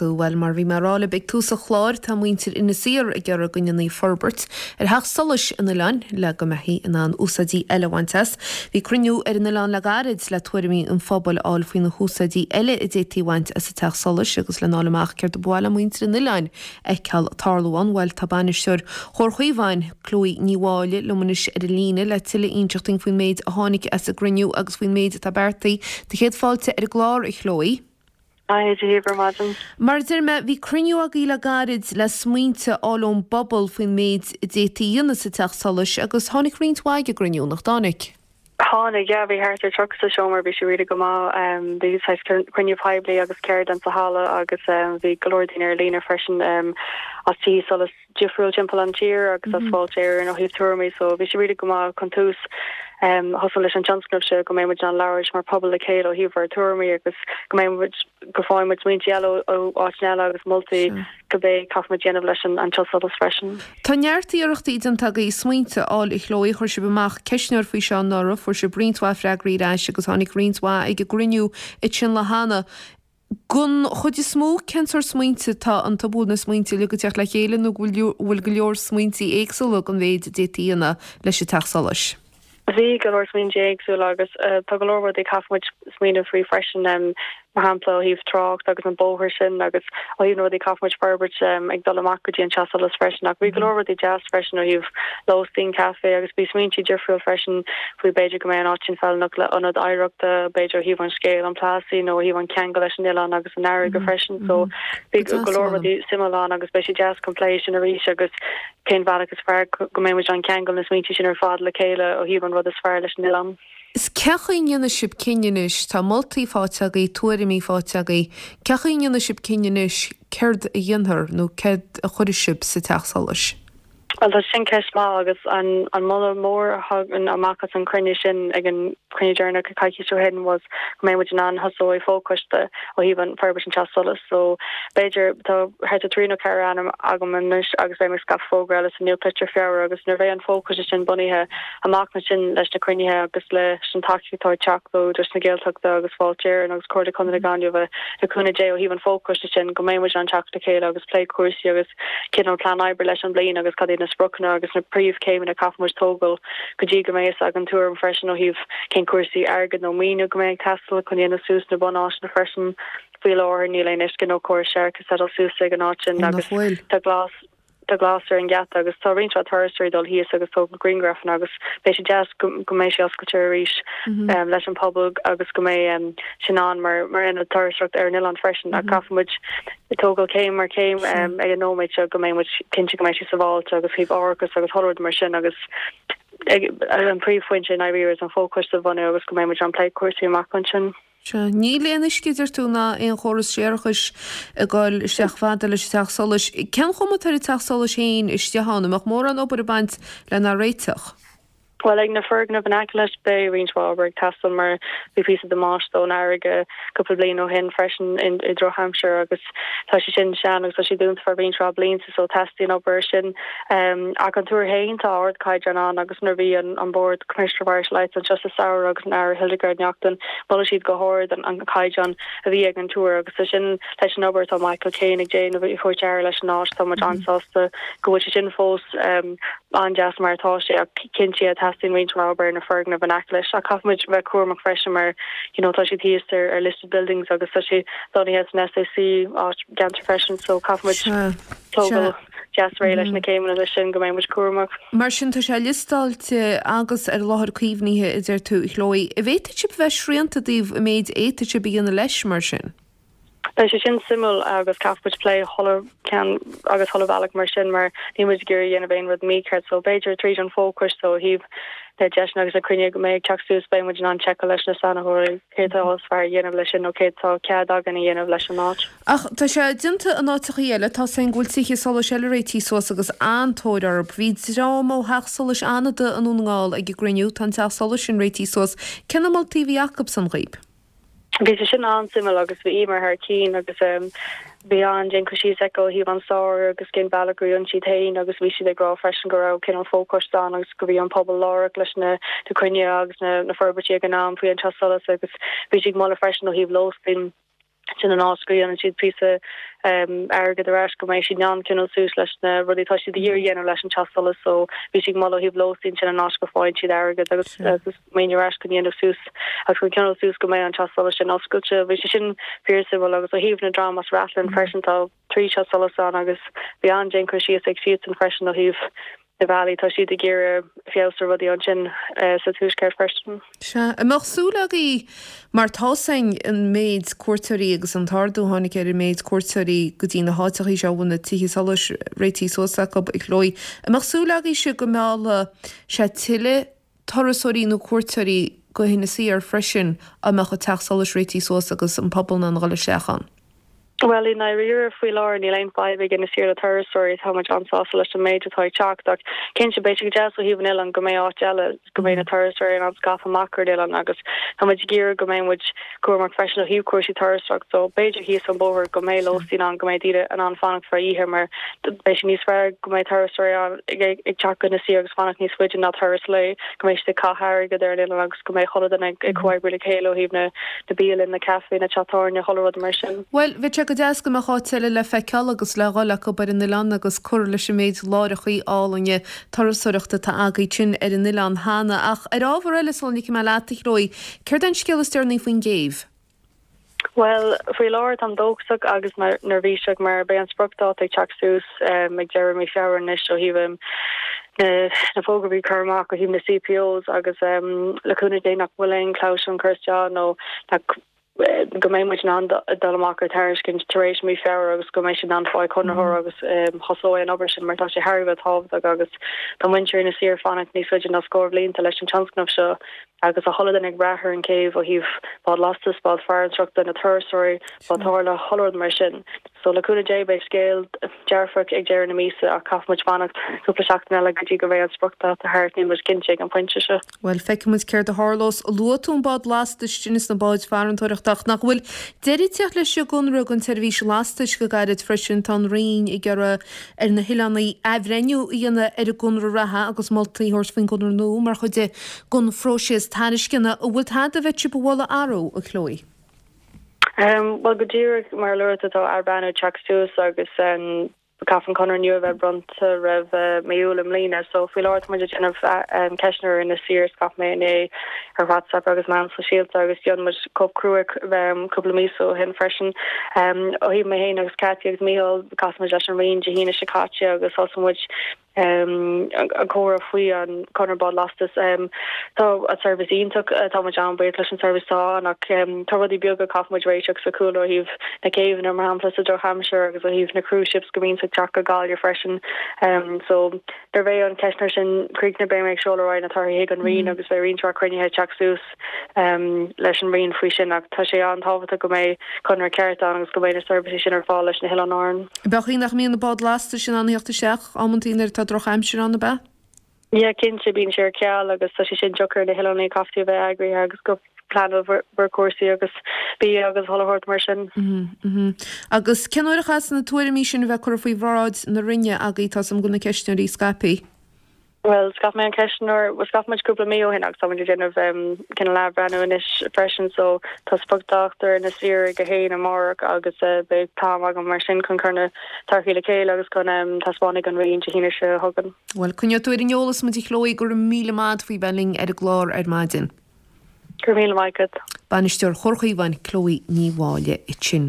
tú. Bhuel, mar a bhí mé a rá libh ag tús an chláir, tá muintir Inis Oírr ag iarraidh go ndéanfaí forbairt ar theach solais an oileáin le go mbeifí in ann úsáidí eile a bhaint as. Bhí cruinniú ar an oileán le gairid le tuairimí an phobail a fháil faoi na húsáidí eile a d'fhéadfaí a bhaint as an teach solais agus lena fháil amach céard a ba mhaith le muintir an oileáin a fheiceáil ag tarlú ann. Bhuel, tá bainisteoir Chomhar Chaomháin, Chloe Ní Mháille, liom anois ar an líne le tuilleadh a inseacht dúinn faoin méid a tháinig as an gcruinniú agus faoin méid atá beartaithe. Do chéad fáilte ar an gclár, a Chloe. Haigh, Dia daoibh ar maidin. Mar a deir mé, bhí cruinniú agaibh le gairid le smaointe a fháil ón bpobal faoin méid a d'fhéadfaí a dhéanamh sa teach solais agus tháinig roinnt mhaith ag an gcruinniú, nach dtáinig? Tháinig, yeah, bhí thart ar 30 sa seomra, bhí sé really go maith. Bhí saghas cruinniú poiblí agus ceardlann sa halla agus bhí go leor daoine ar líne freisin as tithe solais difriúil timpeall an tír agus as Fáilte Éireann ó thaobh tuairimí so bhí sé really go maith chun tús thosú leis an tionscnamh seo go mbeidh muid in ann labhairt mar pobal le chéile ó thaobh ár tuairimí agus go mbeidh muid go bhfaighidh muid smaointe eile ó áiteanna eile agus moltaí cibé caithfidh muid déanamh leis an teach solais freisin. Tá neart iarrachtaí déanta agaibh smaointe a fháil a Chloe, chuir sibh amach ceistneoir faoi seo anuraidh, fuair sibh roinnt mhaith freagraí ar ais agus tháinig roinnt mhaith ag an gcruinniú ansin lá cheana. Don chuid is mó, cén sórt smaointe atá iontu? An bhfuil na smaointe uilig ag teacht le chéile nó go bhfuil go leor smaointe éagsúla don mhéid a d'fhéadfaí a dhéanamh leis an teach solais? Bhí go leor smaointe éagsúla agus tá go leor rudaí a caithfidh muid smaoineamh faoi freisin, mar shampla ó thaobh trácht agus an bóthar sin agus ó thaobh na rudaí a caithfidh muid forbairt ag dul amach go dtí an teach solais freisin. Ach bhí go leor rudaí deas freisin ó thaobh lóistín, caife agus bhí smaointe difriúil freisin faoi b'fhéidir go mbeidh an áit sin feiliúnach le ionad oidhreachta, b'fhéidir ó thaobh an scéal, an Plassey nó ó thaobh an ceangal leis an oileán agus an fharraige freisin. So bhí go leor rudaí suimiúil ann agus beidh sé deas chun plé sin arís agus cén bhealach is fearr go mbeidh muid in ann ceangal na smaointe sin ar fad le chéile ó thaobh an rud is fearr leis an oileán. Is cén chaoi a ndéanfaidh sibh cinneadh anois, tá moltaí faighte agaibh, tuairimí faighte agaibh, cén chaoi a ndéanfaidh sibh cinneadh anois céard a dhéanfar nó céard a chuirfidh sibh sa teach solais? Bhuel tá sin ceist maith agus an an moladh mór a thagann amach as an chruinniú sin ag an chruinniú deireanach coicís ó shin was go mbeidh muid in ann thosú ag fochoiste ó thaobh an forbairt an teach solais. So b'fhéidir tá thart ar 3 nó 4 ainm agam anois agus beidh mé ag scaipeadh fógra eile sa nuachtlitir Feabhra agus nuair a bheidh an fochoiste sin bunaithe amach ansin leis na cruinnithe agus leis an tacaíocht atá ag teacht ó Údarás na Gaeltachta agus Fáilte Éireann agus Comhairle Contae na Gaillimhe le cúnamh Dé ó thaobh an fochoiste sin go mbeidh muid in ann teacht le chéile agus plé cúrsaí agus cineál plean oibre leis an bliain agus cad iad na spriocanna agus na príomhchéimeanna a caithfidh muid tógáil go dtí go mbeidh fhios againn tuairim freisin ó thaobh cén cúrsaí airgid nó maoiniú go mbeidh ag teastáil chun dhéanamh suas na bunáiteanna freisin. Faoi láthair níl aon uisce nó córas séarachais setáilte suas ag an áit sin Ó agus nach bhfuil? tá glas tá glas ar an gheata agus tá roinnt mhaith turasóirí ag dul thíos agus tógáil grianghrafanna agus beidh sé deas go go mbeidh sé oscailte arís leis an pobal agus go mbeidh sin ann mar mar ionad turasóireachta ar an oileán freisin ach caithfidh muid tógáil céim ar chéim ag an nóiméad seo go mbeidh muid cinnte go mbeidh sé sábháilte agus thaobh árachas agus chuile rud mar sin agus an príomhphointe i ndáiríre is an fochoiste a bhunú agus go mbeidh muid in ann plé cúrsaí amach ansin. Sea. Níl aon uisce, deir tú, ná aon chóras séarachais ag dul isteach fada leis an teach solais. Cén chuma atá ar an teach solais féin istigh ann? An mbeadh mórán obair ag baint lena réiteach? Bhuel, ag na foirgnimh in aice leis, beidh roinnt mhaith obair ag teastáil mar bhí píosa damáiste ón fharraige cúpla bliain ó shin freisin i drochaimsir agus tá sé sin sean agus tá sé dúnta feadh roinnt mhaith blianta so teastaíonn obair ar sin. Ach an túr féin, tá ardchaighdeán ann agus nuair a bhí an Bord Commissioner of Irish Lights anseo sa samhradh agus an Aire Hildegarde Naughton, mhol siad go hard an caighdeán a bhí ag an túr agus tá sin leis an obair atá Michael Kane ag déanamh ag tabhairt aire leis an áit, tá muid an-sásta go bhfuil sé sin fós. an-deas mar atá sé ach cinnte teastaíonn roinnt mhaith obair ar na foirgnimh in aice leis ach caithfidh muid bheith cúramach freisin mar you know tá siad thíos ar ar listed buildings agus tá sé lonnaithe san SAC áit gceantar freisin so caithfidh muid tógáil deas réidh leis na céimeanna leis sin go mbeidh muid cúramach. Mar sin tá sé liostáilte agus ar láthair caomhnaithe a deir tú a Chloe. An bhféadfaidh sibh a bheith srianta i dtaobh an méid a fhéadfaidh sibh a dhéanamh leis mar sin? Beidh sé sin suimiúil agus caithfidh muid plé chuile cheann agus chuile bhealach mar sin mar níl muid ag iarraidh a dhéanamh aon rud mícheart so b'fhéidir tríd an fhochoiste ó thaobh na deiseanna agus na cruinnithe go mbeidh ag teacht suas beidh muid in ann seiceáil leis na saineolaithe céard atá is fearr a dhéanamh leis sin nó céard atá cead againn a dhéanamh leis an áit. Ach tá sé déanta in áiteachaí eile, tá a fhios againn go bhfuil tithe solais eile réitithe suas agus an-tóir orthu. Bhí dream ó theach solais Fhánada i nDún na nGall ag an gcruinniú, tá an teach solais sin réitithe suas. Cé na moltaí a bhí acubsan dhaoib? Bhí sé sin an-suimiúil agus bhí Emer thar cinn agus bhí an-déan cur síos aici ó thaobh an stair agus cén bealach a rinne siad féin agus bhí siad ag rá freisin go raibh cineál fochoiste ann agus go bhí an pobal lárach leis na cruinnithe agus na forbairtí ag an am faoi an teach solais agus bhí siad ag moladh freisin ó thaobh lóistín. Sin an áit go dhéanann siad píosa airgead ar ais go mbeidh siad in ann coinneáil suas leis na rudaí atá siad ag iarraidh a dhéanamh leis an teach solais so bhí siad ag moladh ó thaobh lóistín sin an áit go faigheann siad airgead agus agus maoiniú ar ais chun dhéanamh suas agus chun coinneáil suas go mbeidh an teach solais sin oscailte. Bhí sé sin fíorsuimiúil agus ó thaobh na dream as Rathlin freisin tá 3 teach solais ann agus bhí an-déan cur síos ag siadsan freisin ó thaobh na bealaí tá siad ag iarraidh feabhas ar rudaí ansin sa tuaisceart freisin. Sea. An mbeadh súil agaibh, mar tá's againn an méid cuairteoirí agus an t-ardú a tháinig ar an méid cuairteoirí go dtí na háiteachaí seo a bhfuil na tithe solais réitithe suas acu, a Chloe, an mbeadh súil agaibhse go meallfadh sé tuilleadh turasóirí nó cuairteoirí go hInis Oírr freisin dá mbeadh an teach solais réitithe suas agus an pobal in ann a dhul isteach ann? Bhuel, i ndáiríre, faoi láthair níl aon fadhb ag Inis Oírr le turasóirí, tá muid an-sásta leis an méid atá ag teacht ach cinnte beidh sé go deas ó thaobh an oileáin go mbeidh áit eile, go mbeidh na turasóirí in ann scaipeadh amach ar an oileán agus tá muid ag iarraidh go mbeidh muid cúramach freisin ó thaobh cúrsaí turasóireachta so b'fhéidir thíos an bóthar go mbeidh lóistín ann, go mbeidh daoine in ann fanacht feadh oíche mar beidh sé níos fearr go mbeidh turasóirí ann ag teacht go Inis Oírr agus fanacht níos faide ná turas lae, go mbeidh siad ag caitheamh airgead ar an oileán agus go mbeidh chuile dhuine ag comhoibriú le chéile ó thaobh na na bialann, na caifé, na teach tábhairne, chuile rud mar sin. Bhuel, bheadh sé go deas go mbeadh áit eile le feiceáil agus le dhul acu ar an oileán agus cur leis an méid láithreachaí álainne turasóireachta atá agaibh sin ar an oileán cheana. Ach ar ábhar eile, sula ligfidh mé leat, a Chloe, céard é an scéal is deireanaí faoin gcéibh? Bhuel, faoi láthair táim dóchasach agus neirbhíseach mar beidh an spriocdháta ag teacht suas ag deireadh mí Feabhra anois ó thaobh na fógraí a chur amach ó thaobh na CPOs agus le cúnamh Dé nach bhfuil aon chlabhsúr curtha isteach nó nach go mbeidh muid in ann dul amach ar tairiscint tar éis mí Feabhra agus go mbeidh siad in ann fáil conraitheoir agus thosóidh an obair sin mar tá sé thar a bheith tábhachtach agus tá muintir Inis Oírr fanacht níos faide ná scór bhlianta leis an tionscnamh seo agus tá chuile duine ag brath ar an céibh ó thaobh bád lastais, bád farantóireachta, na turasóirí, bád tábhairne, chuile rud mar sin. So le cúnamh Dé beidh scéal dearfach ag deireadh na míosa ach caithfidh muid fanacht cúpla seachtain eile go dtí go mbeidh an spriocdháta thart, níl muid cinnte ag an phointe seo. Bhuel, feicfidh muid céard a tharlós. Luaigh tú an bád lastais sin is na báid farantóireachta ach nach bhfuil deireadh ag teacht leis an gconradh don tseirbhís lastais go gairid freisin. Tá an Roinn ag iarraidh ar na hoileánaigh athbhreithniú a dhéanamh ar an gconradh reatha agus moltaí a thabhairt faoin gconradh nua mar chuid de gon phróiseas tairisceana. An bhfuil tada a bheadh sibh a mholadh athrú, a Chloe? Bhuel, go díreach mar a luaigh tú, tá athbhreithniú ag teacht suas agus caithfidh an conradh nua a bheith bronnta roimh mí Iúil i mbliana. So faoi láthair tá muid ag déanamh ceistneoir ar Inis Oírr, scaip mé inné ar WhatsApp agus meáin sóisialta agus dhein muid cóip chrua cúpla míosa ó shin freisin. Ó thaobh mé féin agus Cathy agus Mícheál, chas muid leis an Roinn Dé hAoine seo caite agus thosaigh muid an comhrá faoi an conradh bád lastais. Tá an seirbhís iontach, tá muid an-bhuíoch leis an seirbhís atá ann ach tá rudaí beaga a chaithfidh muid réiteach sa chúlra ó thaobh na céibheanna mar shampla sa drochaimsir agus ó thaobh na cruise ships go mbíonns ag teacht go Gaillimh freisin. So nuair a bheidh an ceistneoir sin críochnaithe beidh mé ag seoladh ar aghaidh na torthaí chuig an Roinn agus beidh roinnt mhaith cruinnithe ag teacht suas leis an Roinn faoi sin ach tá sé an-tábhachtach go mbeidh conradh ceart ann agus go mbeidh na seirbhísí sin ar fáil leis na hOileáin Árann. Ab é an chaoi nach mbíonn na báid lastais in ann a theacht isteach amantaí nuair atá drochaimsir ann, ab ea? Yeah, cinnte, bíonn sé ar ceal agus tá sé sin deacair ar na hoileánaigh, caithfidh tú a bheith eagraithe agus go pleanáil bhur cúrsaí agus bia agus chuile shórt mar sin. Agus cén uair a chaithfeas na tuairimí sin a bheith curtha faoi bhráid na Roinne agaibh, tá 's agam go bhfuil na ceistneoirí scaipthe? Bhuel, scaip mé an ceistneoir, bhuel scaip muid cúpla mí ó shin agus tá muid ag déanamh cineál athbhreithniú anois freisin so tá spriocdháta ar Inis Oírr ag a haon amárach agus beidh t-am agam mar sin chun cur na torthaí le chéile agus chun taispeáint ag an Roinn Dé hAoine seo chugainn. Bhuel, coinneoidh tú ar an eolas muid a Chloe, go raibh míle maith agat faoi bheith linn ar an gclár ar maidin. Go raibh míle maith agat. Bainisteoir Chomhar Chaomháin, Chloe Ní Mháille ansin.